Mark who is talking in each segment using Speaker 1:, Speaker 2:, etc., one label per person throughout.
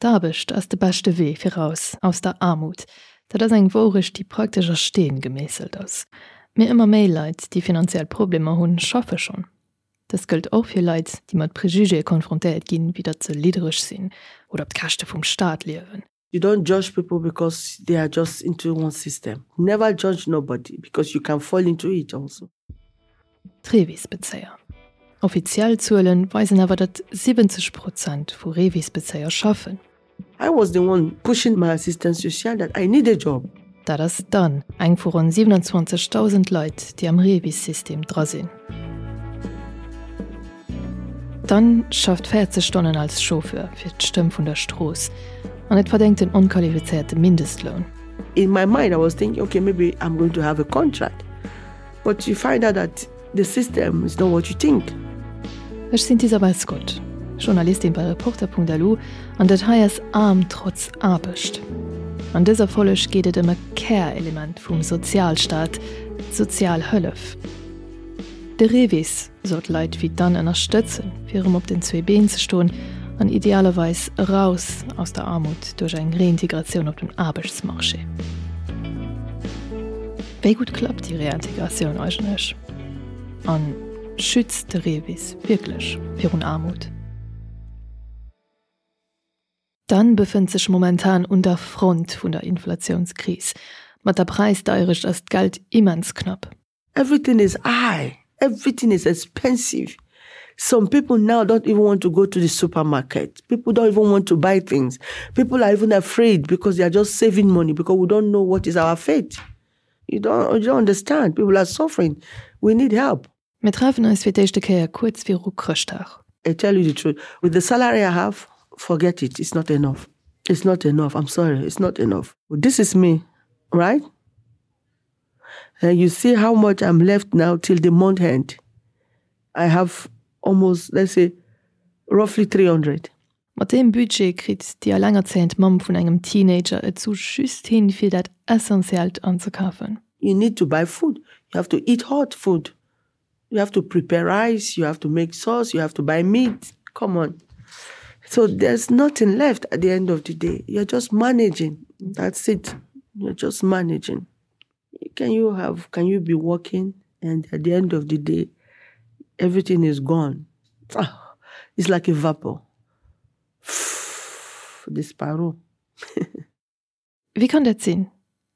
Speaker 1: D'Aarbecht ass de beschte Wee fir raus aus der Aarmut. Dat ass eng Wourecht, déi praktesch a Steen gemeesselt ass. Mee ëmmer méi Leit, déi finanziell Problemer hunn, schaffe schonn. Dëst gëllt och fir Leit, déi mat Prejugéë konfrontéiert ginn, wéi datt se liddereg sinn oder op d'Käschte vum Staat liewen.
Speaker 2: You don't judge people because they are just into one system. Never judge nobody because you can fall into it also.
Speaker 1: D'Revis-Bezéier. Offiziell Zuele weisen awer, datt 70 Prozent vu Revis-Bezéier schaffen.
Speaker 2: I was the one pushing my assistant social that I need a job.
Speaker 1: Dat ass dann eng vu ronn 27.000 Leit, déi am REVIS-System dra sinn. D'Anne schafft 40 Stonnen als Chauffeur fir d'Stëmm vun der Strooss an et verdéngt den onqualifizéierte Mindestloun.
Speaker 2: In my mind I was thinking okay maybe I'm going to have a contract but you find out that the system is not what you think.
Speaker 1: Ech sinn d'Isabel Scott, Journalistin bei Reporter.lu an dat hei ass Aarm trotz Aarbecht. An dëser Folleg geet et ëm e Kärelement vum Sozialstaat, d'Sozialhëllef. De REVIS soll d'Leit wéi d'Anne ënnerstëtzen, fir erëm op den zwee Been ze stoen an idealerweis eraus aus der Aarmut duerch eng Reintegratioun op dem Aarbechtsmarché. Wéi gutt klappt déi Reintegratioun eigentlech? An schützt de REVIS wierklech virun Aarmut? D'Anne befënnt sech momentan un der Front vun der Inflatiounskris. Mat der Präisdeierecht ass d'Geld immens knapp.
Speaker 2: Everything is high, everything is expensive. Some people now don't even want to go to the supermarket. People don't even want to buy things. People are even afraid because they are just saving money because we don't know what is our fate. You don't, you don't understand. People are suffering. We need help.
Speaker 1: Mir treffen eis fir d'éischte Kéier kuerz viru Chrëschtdag.
Speaker 2: I tell you the truth, with the salary I have, forget it, it's not enough. It's not enough, I'm sorry, it's not enough. This is me, right? And you see how much I'm left now till the month end. I have almost, let's say, roughly 300.
Speaker 1: Mat deem Budget kritt déi allengerzéiend Mamm vun engem Teenager et sou just hin, fir dat Essentiellt anzekafen.
Speaker 2: You need to buy food, you have to eat hot food, you have to prepare rice, you have to make sauce, you have to buy meat, come on. So there's nothing left at the end of the day. You're just managing. That's it. You're just managing. Can you have can you be working and at the end of the day everything is gone? Ah, it's like a vapor. Disparo.
Speaker 1: Wéi kann dat sinn?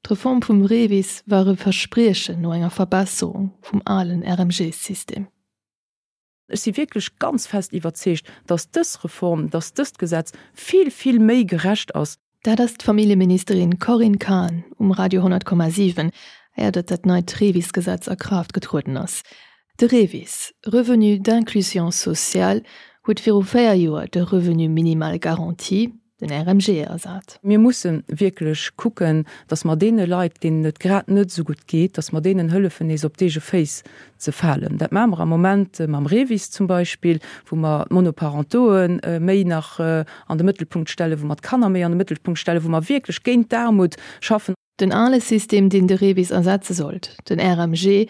Speaker 1: D'Reform vum REVIS war e Verspriechen no enger Verbesserung vum alen RMG-System.
Speaker 3: Ech si wierklech ganz fest iwwerzeegt, dass dës Reform, dass dëst Gesetz vill, vill méi gerecht ass.
Speaker 1: Dat ass d'Familljeministerin Corinne Cahen um Radio 100,7, éier datt dat neit REVIS-Gesetz a Kraaft getrueden ass. De REVIS, Revenu d'inclusion sociale, huet viru 4 Joer de Revenu minimal garanti, den RMG, ersat.
Speaker 3: Mir musse wierklech kucken, dass mer deene Leit, deenen et grad net esou gutt geet, dass mer deenen hëllefen, nees op d'eege Féiss ze falen. Dat maache mer am Moment mam REVIS zum Beispill, wou mer d'Monoparentoe méi nach an de Mëttelpunkt stellen, wou mer d'Kanner méi an de Mëttelpunkt stellen, wou mer wierklech géint d'Aarmut schaffen.
Speaker 1: Den ale System, deen de REVIS ersetze sollt, den RMG,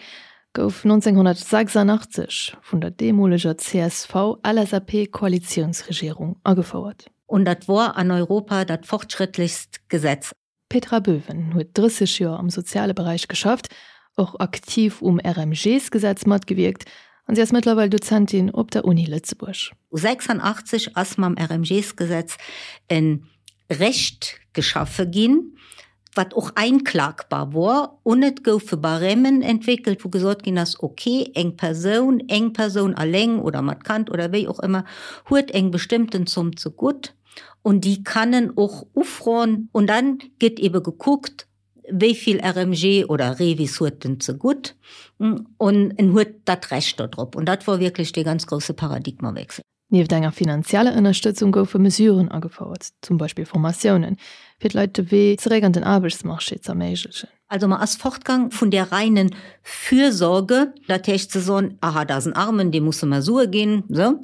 Speaker 1: gouf 1986 vun der deemoleger CSV-LSAP-Koalitiounsregierung agefouert.
Speaker 4: Und dat wor an Europa dat fortschrittlichst Gesetz.
Speaker 1: D'Petra Böwen huet 30 Joer am soziale Beräich geschafft, och aktiv um RMG-s-Gesetz matgewierkt an si ass mëttlerweil Dozentin op der Uni Lëtzebuerg.
Speaker 4: 86 ass mam RMG-s-Gesetz e Recht geschaffe ginn, wat och einklagbar wor, un et goufe Barèmen entwéckelt, wou gesot ginn ass, ok, eng Persoun, eng Persoun alleng oder mat Kand oder wéi och ëmmer, huet eng bestëmmten Zomm zegutt un déi kann en och ufroen. Un dann gëtt ebe gekuckt, wéi vill RMG oder REVIS huet en zegutt un en huet dat Recht dodrop. Un dat wor wierklech dee ganz grousse Paradigmawechsel.
Speaker 1: Nieft enger finanzieller Ënnerstëtzung goufe Mesuren agefouert, zum Beispill Formatiounen, fir d'Leit de Wee zeréck an den Aarbechtsmarché z'erméiglechen.
Speaker 4: Also mer ass fortgang vun där reinen Fürsorge, dat heescht ze soen, aha, dat ass en Armen, deem musse mer Sue ginn, esou,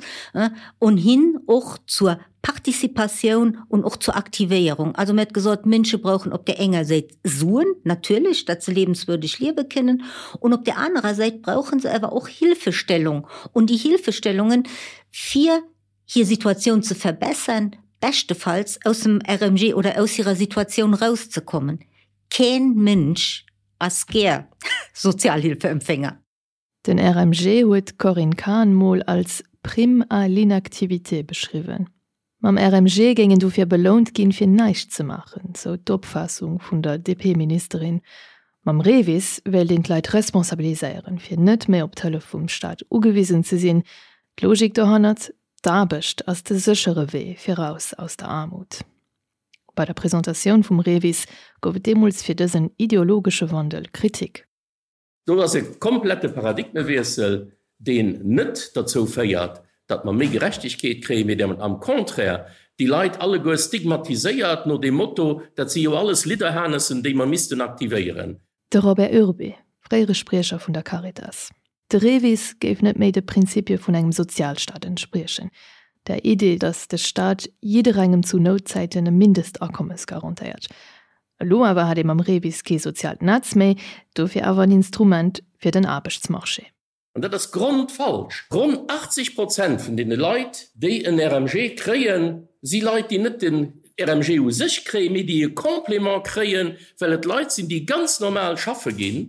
Speaker 4: un hin och zur Participatioun un och zur Aktivéierung. Also mir huet gesot, d'Mënsche brauchen op där enger Säit Suen, natierlech, datt se lebenswürdig liewe kënnen, un op där anerer Säit brauche se awer och Hilfestellung, un déi Hilfestellungen, fir hir Situatioun ze verbessern. beschtefalls aus dem RMG oder aus hirer Situatioun rauszekommen. Keen Mënsch ass gär Sozialhilfeempfänger.
Speaker 1: Den RMG huet d'Corinne Cahen mol als Prime à l'inactivité beschriwwen. Mam RMG géing een dofir belount ginn, fir näischt ze maachen, sou d'Opfaassung vun der DP-Ministerin. Mam REVIS wéilt een d'Leit responsabiliséieren, fir net méi op d'Hëllef vum Staat ugewisen ze sinn. D'Logik dohannert, D'Aarbecht ass de séchere Wee fir raus aus der Aarmut. Bei der Presentatioun vum REVIS gouf et deemools fir dësen ideologesche Wandel Kritik.
Speaker 5: Do ass e komplette Paradigmewiessel, deen net derzou féiert, datt mer méi Gerechtegkeet kréien, mee deen am Contraire déi Leit alleguer stigmatiséiert no deem Motto, dat si jo alles Lidderhanessen, déi mer missten aktivéieren.
Speaker 1: De Robert Urbé, fréiere Spriecher vun der Caritas. De REVIS géif net méi de Prinzipie vun engem Sozialstaat entspriechen, der Idee, datt de Staat jidderengem zu Noutzäiten e Mindestakommes garantéiert. Elo awer hätt ee mam REVIS kee soziaalt Netz méi, dofir awer en Instrument fir den Aarbechtsmarché.
Speaker 5: An dat ass grondfalsch. Ronn 80 Prozent vun deene Leit, déi en RMG kréien, si Leit, déi net den RMG u sech kréien, mee déi e Complément kréien, well et Leit sinn, déi ganz normal schaffe ginn,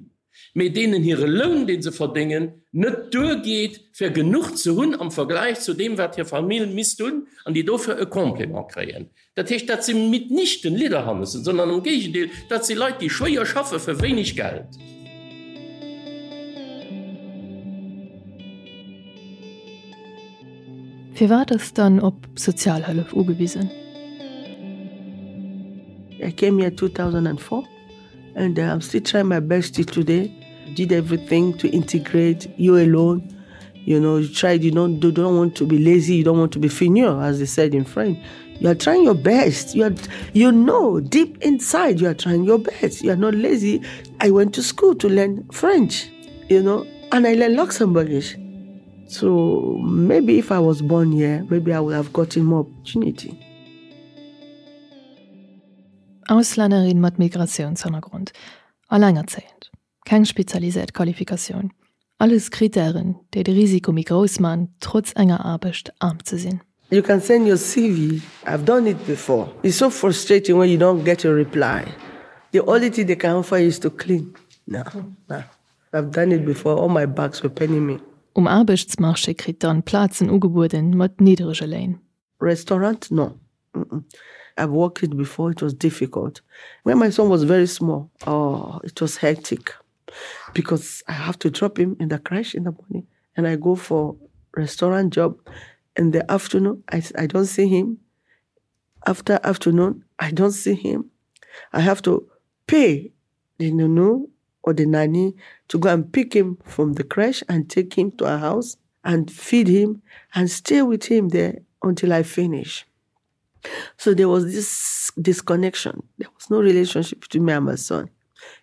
Speaker 5: mee deenen hire Loun, dee se verdéngen, net duergeet, fir genuch ze hunn am Vergläich zu deem, wat hir Famill misst hunn, an déi dofir e Complément kréien. Dat heescht, dat si mitnichten Lidderhannessen, sondern am Géigendeel, dat si Leit, déi schwéier schaffe fir wéineg Geld.
Speaker 1: Firwat ass dann op Sozialhëllef ugewisen?
Speaker 2: I came here 2004. And I'm still trying my best till today. Did everything to integrate you alone. You know, you tried, you don't, you don't want to be lazy, you don't want to be feignant, as they said in French. You are trying your best. You are, you know, deep inside, you are trying your best. You are not lazy. I went to school to learn French, you know, and I learned Luxembourgish. So maybe if I was born here, maybe I would have gotten more opportunity.
Speaker 1: Auslännerin mat Migratiounshannergrond, allengerzéiend, keng spezialiséiert Qualifikatioun, alles Krittären, déi de Risiko méi grouss man, trotz enger Aarbecht aarm ze sinn.
Speaker 2: You can send your CV, I've done it before. It's so frustrating when you don't get a reply. The only thing they can offer you is to clean. No, no. I've done it before, all my backs were paining me.
Speaker 1: Um Aarbechtsmarché kritt d'Anne Plazen ugebueden mat nidderege Léin.
Speaker 2: Restaurant, no. Mm -mm. I've worked it before, it was difficult. When my son was very small, oh, it was hectic because I have to drop him in the creche in the morning and I go for restaurant job in the afternoon. I, I don't see him. After afternoon, I don't see him. I have to pay the nunu or the nanny to go and pick him from the creche and take him to our house and feed him and stay with him there until I finish. So there was this disconnection. There was no relationship between me and my son.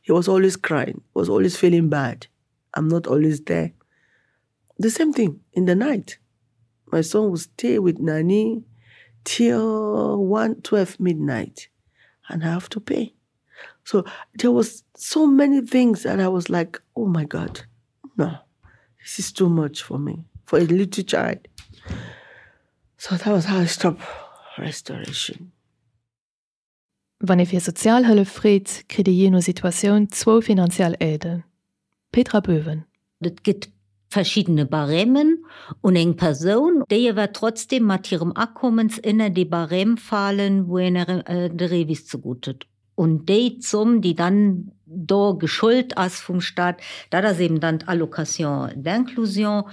Speaker 2: He was always crying, was always feeling bad. I'm not always there. The same thing in the night. My son would stay with Nani till 1 12 midnight and I have to pay. So there was so many things that I was like, oh my God, no, this is too much for me, for a little child. So that was how I stopped restoration.
Speaker 1: Wann ee fir Sozialhëllef freet, kritt ee jee no Situatioun zwou finanziell Aiden. Petra Böwen.
Speaker 4: Et gëtt verschiddene Barèmen un eng Persoun, déi ewer trotzdem mat hirem Akommens ënner dee Barème falen, wou een de REVIS zegutt huet. Un déi Zomm, déi dann do geschult ass vum Stat, dat ass eben dann d'Allocation d'inclusion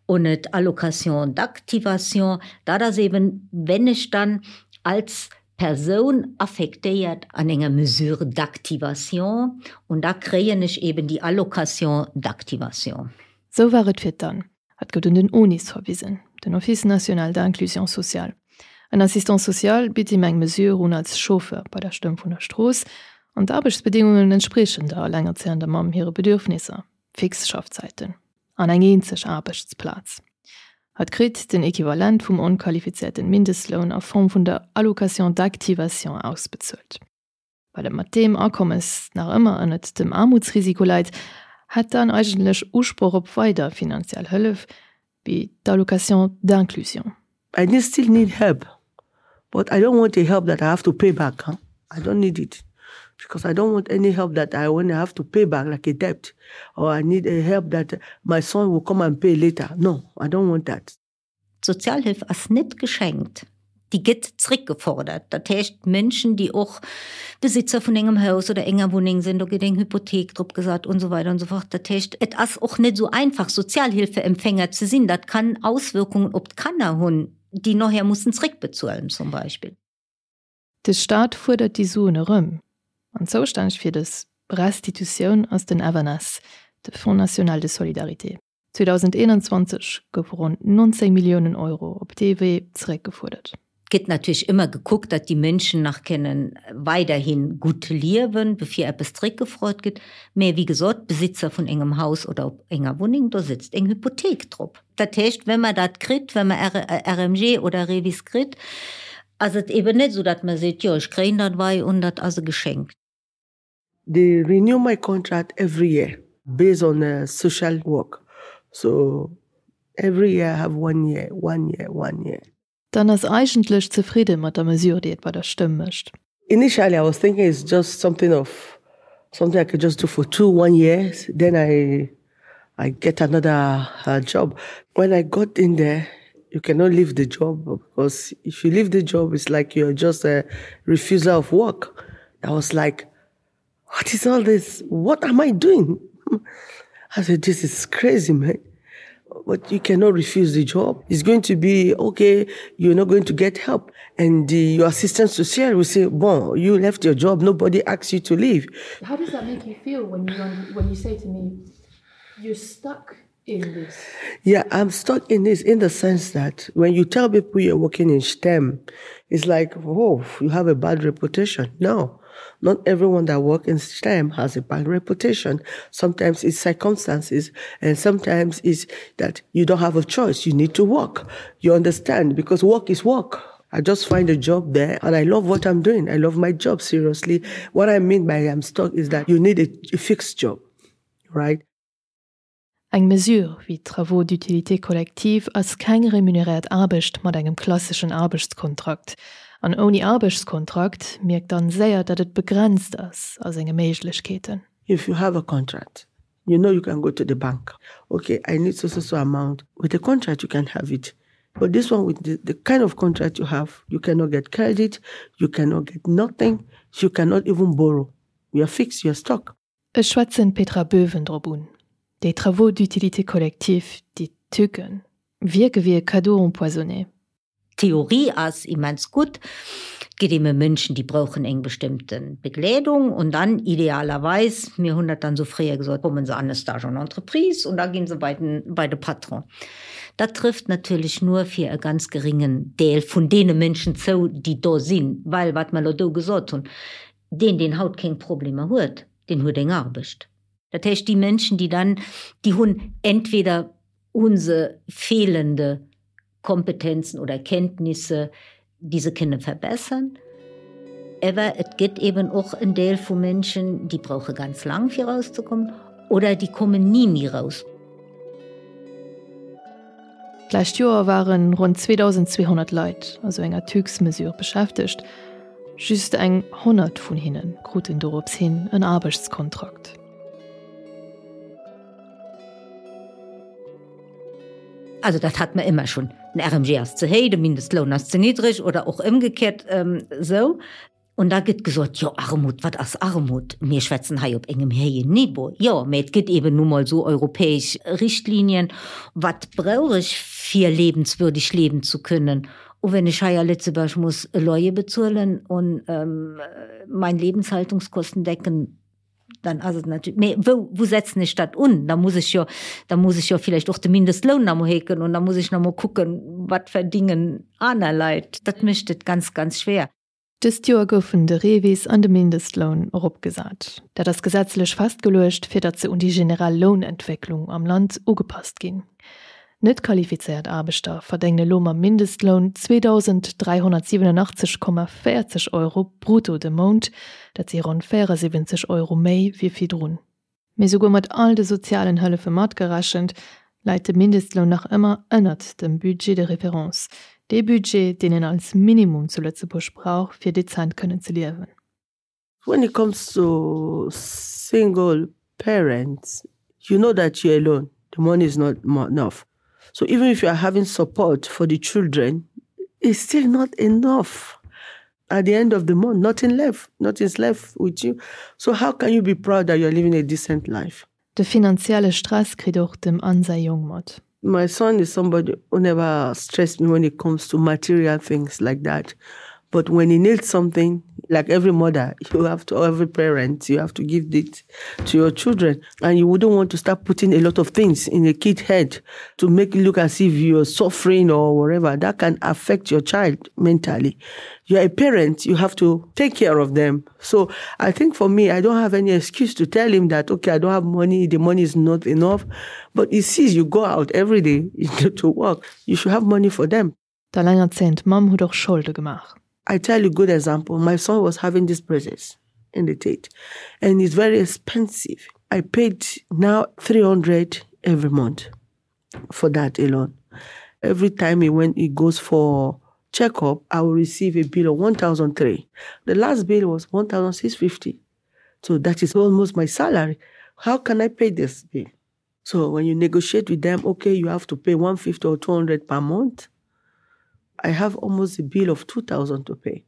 Speaker 4: un d'Allocation d'activation. Dat ass eben, wenn ech dann als Persoun affektéiert an enger Mesure d'activation und da kréien ech eben déi Allocation d'activation.
Speaker 1: Sou war et fir d'Anne. Hatt gouf un den ONIS verwisen, den Office national d'inclusion sociale. En Assistant social bitt him eng Mesure un als Chauffeur bei der Stëmm vun der Strooss an d'Aarbechtsbedingungen entspriechen der allengerzéiender Mamm hire Bedürfnisser, fix Schaffzäiten. An eng eenzeg Aarbechtsplaz. Hatt kritt den Equivalent vum onqualifizierten Mindestloun a Form vun der Allocation d'activation ausbezuelt. Well et mat deem Akommes nach ëmmer ënnert dem Aarmutsrisiko läit, hätt d'Anne eigentlech Usproch op weider finanziell Hëllef, wéi d'Allocation d'inclusion.
Speaker 2: I still need help. But I don't want a help that I have to pay back. Huh? I don't need it. Because I don't want any help that I want to have to pay back like a debt. Or I need a help that my son will come and pay later. No, I don't want that.
Speaker 4: D'Sozialhilf ass net geschenkt, déi gëtt zréckgefordert. Dat heescht, Mënschen, déi och Besitzer vun engem Haus oder enger Wunneng sinn, do gëtt eng Hypothek drop gesat und esou weider und esou fort. Dat heescht, et ass och net esou einfach, Sozialhilfeempfänger ze sinn. Dat kann Auswirkungen op d'Kanner hunn, déi noher mussen zréckbezuelen zum Beispill.
Speaker 1: De Staat fuerdert déi Suen erëm. An zoustänneg fir dës Restitutioun ass den FNS, de Fonds national de solidarité. 2021 goufe ronn 19 Milliounen Euro op dee Wee zeréckgefuerdert.
Speaker 4: Et gëtt natierlech ëmmer gekuckt, datt déi Mënschen nach kënnen weiderhi gutt liewen, bevir eppes zeréckgefrot gëtt. Mä wéi gesot, d'Besitzer vun engem Haus oder op enger Wunneng, do sëtzt eng Hypothek drop. Dat heescht, wa mer dat kritt, wa mer RMG oder REVIS kritt, ass et eben net esou, datt mer seet, jo ech kréien dat wei un, dat ass e Geschenk.
Speaker 2: They renew my contract every year based on uh, social work. So every year I have one year, one year, one year.
Speaker 1: D'Anne ass eigentlech zefridde mat der Mesure, déi et bei der Stëmm mécht.
Speaker 2: Initially I was thinking it's just something of something I could just do for two, one years, then I I get another uh, job. When I got in there, you cannot leave the job because if you leave the job, it's like you're just a refuser of work. I was like, what is all this? What am I doing? I said, this is crazy, man. But you cannot refuse the job. It's going to be, okay, you're not going to get help. And the, your assistant social will say, bon, you left your job. Nobody asks you to leave.
Speaker 1: How does that make you feel when you, when you say to me, you're stuck in this?
Speaker 2: Yeah, I'm stuck in this in the sense that when you tell people you're working in STEM, it's like, oh, you have a bad reputation. No. Not everyone that works in STEM has a bad reputation. Sometimes it's circumstances and sometimes it's that you don't have a choice. You need to work. You understand because work is work. I just find a job there and I love what I'm doing. I love my job, seriously. What I mean by I'm stuck is that you need a, a fixed job, right?
Speaker 1: Eng Mesure wéi d'Travaux d'utilité collective ass keng remuneréiert Aarbecht mat engem klasseschen Aarbechtskontrakt. An ouni Aarbechtskontrakt mierkt d'Anne séier, datt et begrenzt ass a senge Méiglechkeeten.
Speaker 2: If you have a contract, you know you can go to the bank. Okay, I need so so so amount. With a contract, you can have it. But this one, with the, the kind of contract you have, you cannot get credit, you cannot get nothing, you cannot even borrow. You're fixed, you're stuck.
Speaker 1: Ech schwätzen d'Petra Böwen drop un. Déi Travaux d'utilité collective, déi TÜCen, wierke wéi e Cadeau empoisonné.
Speaker 4: D'Theorie ass immens gutt. Et gëtt ebe Mënschen, déi brauchen eng bestëmmte Begleedung und dann idealerweis, mir hunn dat dann esou fréier gesot, kommen se an e Stage en entreprise und da ginn se bei den, bei de Patron. Dat trëfft natierlech nur fir e ganz geringen Deel vun deene Mënschen zou, déi do sinn, well wat mer elo do gesot hunn, Deen, deen haut keng Problemer huet, deen huet eng Arbecht. Dat heescht, déi Mënschen, déi dann, déi hunn entweder hu se fehlende Kompetenzen oder Kenntnisse, déi se kënne verbessern, ewer et gëtt eben och en Deel vu Mënschen, déi brauche ganz laang fir erauszekommen oder déi kommen ni méi raus.
Speaker 1: D'lescht Joer ware ronn 2.200 Leit a sou enger TÜX-Mesure beschäftegt. Just eng 100 vun hinne kruten dorops hin en Aarbechtskontrakt.
Speaker 4: Also dat hat mer ëmmer schonn, den RMG ass ze héi, de Mindestloun ass ze niddreg oder och ëmgekéiert esou. Und da gëtt gesot, jo Armut, wat ass Armut? Mir schwätzen hei op engem héijen Niveau. Jo, mä et gëtt eben nu mol esou europäesch Richtlinien. Wat brauch ech fir lebenswürdig leben zu können? Und wenn ech hei a Lëtzebuerg muss e Loyer bezuelen und mein Lebenshaltungskosten decken, dann ass et natierlech, mä wou, wou setzen ech dat un? Da muss ech jo, da muss ech jo villäicht och de Mindestloun nach emol héiken und da muss ech nach emol kucken, wat verdingen aner Leit. Dat mécht et ganz, ganz schwer.
Speaker 1: Dëst Joer goufen de REVIS an de Mindestloun eropgesat. Dat ass gesetzlech festgeluecht, fir datt se un déi generell Lounentwécklung am Land ugepasst ginn. Net qualifizéiert Aarbechter verdéngen elo mam Mindestloun 2.387,40 Euro brutto de Mount, dat si ronn 74 Euro méi wéi virdrun. Mee souguer mat all de sozialen Hëllefe matgerechent, läit de Mindestloun nach ëmmer ënnert dem Budget de référence. Dee Budget, deen een als Minimum zu Lëtzebuerg brauch, fir dezent kënnen ze liewen.
Speaker 2: When it comes to single parents, you know that you're alone. The money is not enough. So even if you are having support for the children, it's still not enough. At the end of the month, nothing left. Nothing's left with you. So how can you be proud that you're living a decent life?
Speaker 1: De finanzielle Stress kritt och dem Anne säi Jong mat.
Speaker 2: My son is somebody who never stressed me when it comes to material things like that. But when he needs something, like every mother, you have to, every parent, you have to give it to your children. And you wouldn't want to start putting a lot of things in a kid's head to make it look as if you're suffering or whatever. That can affect your child mentally. You're a parent, you have to take care of them. So I think for me, I don't have any excuse to tell him that, okay, I don't have money, the money is not enough. But he sees you go out every day to work. You should have money for them.
Speaker 1: D'allengerzéiend Mamm huet och Scholde gemaach.
Speaker 2: I tell you good example, my son was having this braces in the teeth and it's very expensive. I paid now 300 every month for that alone. Every time he went, he goes for checkup, I will receive a bill of 1,003. The last bill was 1,650. So that is almost my salary. How can I pay this bill? So when you negotiate with them, okay, you have to pay 150 or 200 per month. I have almost a bill of 2000 to pay.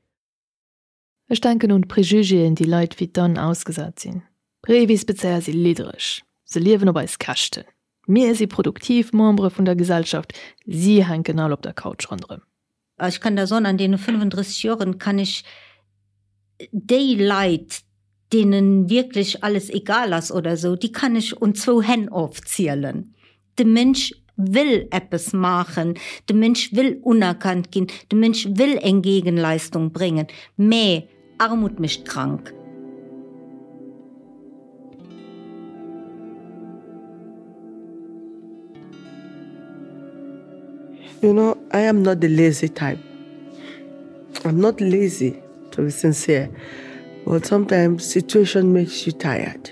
Speaker 1: Ech denken un d'Prejugéen, déi Leit wéi d'Anne ausgesat sinn. Revis-Bezéier si liddereg, se liewen op eis Käschten. Mir si produktiv Membere vun der Gesellschaft, si hänken all op der Couch ronderëm.
Speaker 4: Ech kann der soen, an deene 35 Joren kann ech déi Leit, deene wierklech alles egal ass oder esou, déi kann ech un zwou Hänn ofzielen. De Mënsch wëll eppes maachen, de Mënsch wëll unerkannt ginn, de Mënsch wëll eng Gegenleistung bréngen, mä Armut mécht krank.
Speaker 2: You know, I am not the lazy type. I'm not lazy, to be sincere. But sometimes situation makes you tired.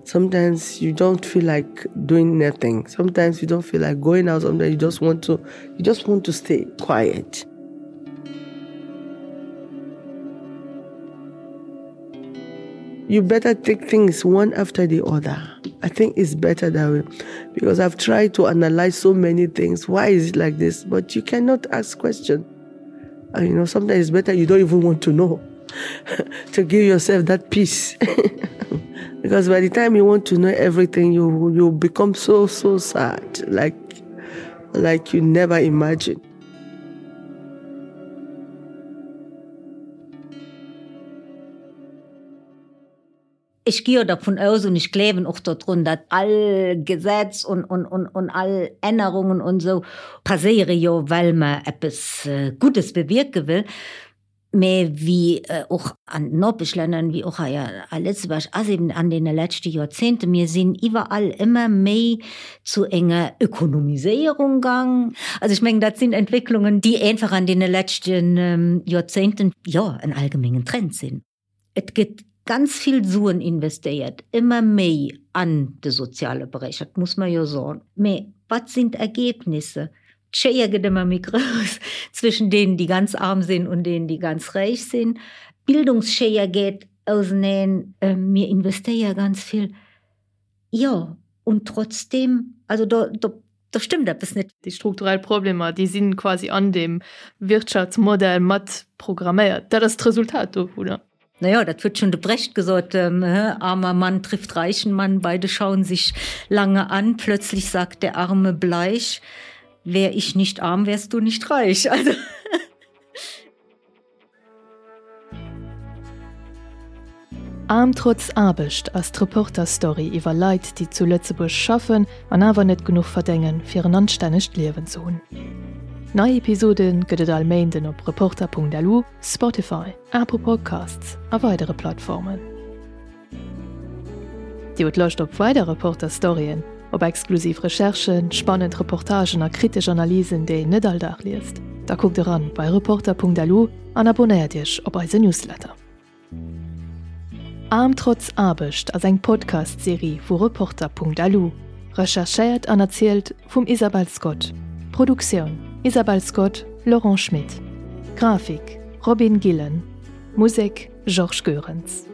Speaker 2: Sometimes you don't feel like doing nothing. Sometimes you don't feel like going out. Sometimes you just want to you just want to stay quiet. You better take things one after the other. I think it's better that way because I've tried to analyze so many things. Why is it like this? But you cannot ask question. And you know, sometimes it's better you don't even want to know to give yourself that peace. because by the time you want to know everything, you you become so so sad, like like you never imagine.
Speaker 4: Ech gi jo dervun aus un ech gleewen och dodrun, datt all Gesetz un un un un all Ännerungen un esou passéiere jo, well mer eppes Guddes bewierke wëll. Mä wéi och an den Nopeschlänner, wéi och hei a Lëtzebuerg ass eben an deene leschte Joerzéngte, mir sinn iwwerall ëmmer méi zu enger Ökonomiséierung gang. Also ech mengen, dat sinn Entwécklungen, déi einfach an deene leschte Joerzéngten, jo, en allgemengen Trend sinn. Et gëtt ganz vill Suen investéiert, ëmmer méi an de soziale Beräich, dat muss mer jo soen. Mä wat sinn d'Ergebnisse? D'Schéier gëtt ëmmer méi grouss zwëschen deenen, déi ganz arm sinn, un deenen, déi ganz räich sinn. D'Bildungsschéier geet auseneen. Mir investéiere ganz vill. Jo, und trotzdem, also do, do, do stëmmt eppes net.
Speaker 1: Déi strukturell Problemer, déi si quasi an deem Wirtschaftsmodell mat programméiert. Dat ass d'Resultat dovunner.
Speaker 4: Na ja, dat huet schonn de Brecht gesot, Armer Mann trifft reichen Mann, beide schauen sich lange an, plötzlich sagt der Arme bleich, Wär ich nicht arm, wärst du nicht reich. Also.
Speaker 1: Aarm trotz Aarbecht ass d'Reporter-Story iwwer Leit, déi zu Lëtzebuerg schaffen an awer net genuch verdéngen, fir en anstännegt Liewen ze hunn. Nei Episode gëtt et all Méinden op Reporter.lu, Spotify, Apple Podcasts a weidere Plattformen. Dir hutt Loscht op weider Reporter-Storyen, op exklusiv Recherchen, spannend Reportagen a kritesch Analysen, déi een net all Dag liest? Da kuckt eran bei Reporter.lu an abonnéiert Iech op eise Newsletter. Aarm trotz Aarbecht ass eng Podcast-Serie vu Reporter.lu, recherchéiert an erzielt vum Isabel Scott. Produktioun, Isabel Scott. Laurent Schmit. Grafik, Robin Gillen. Musek, Georges Goerens.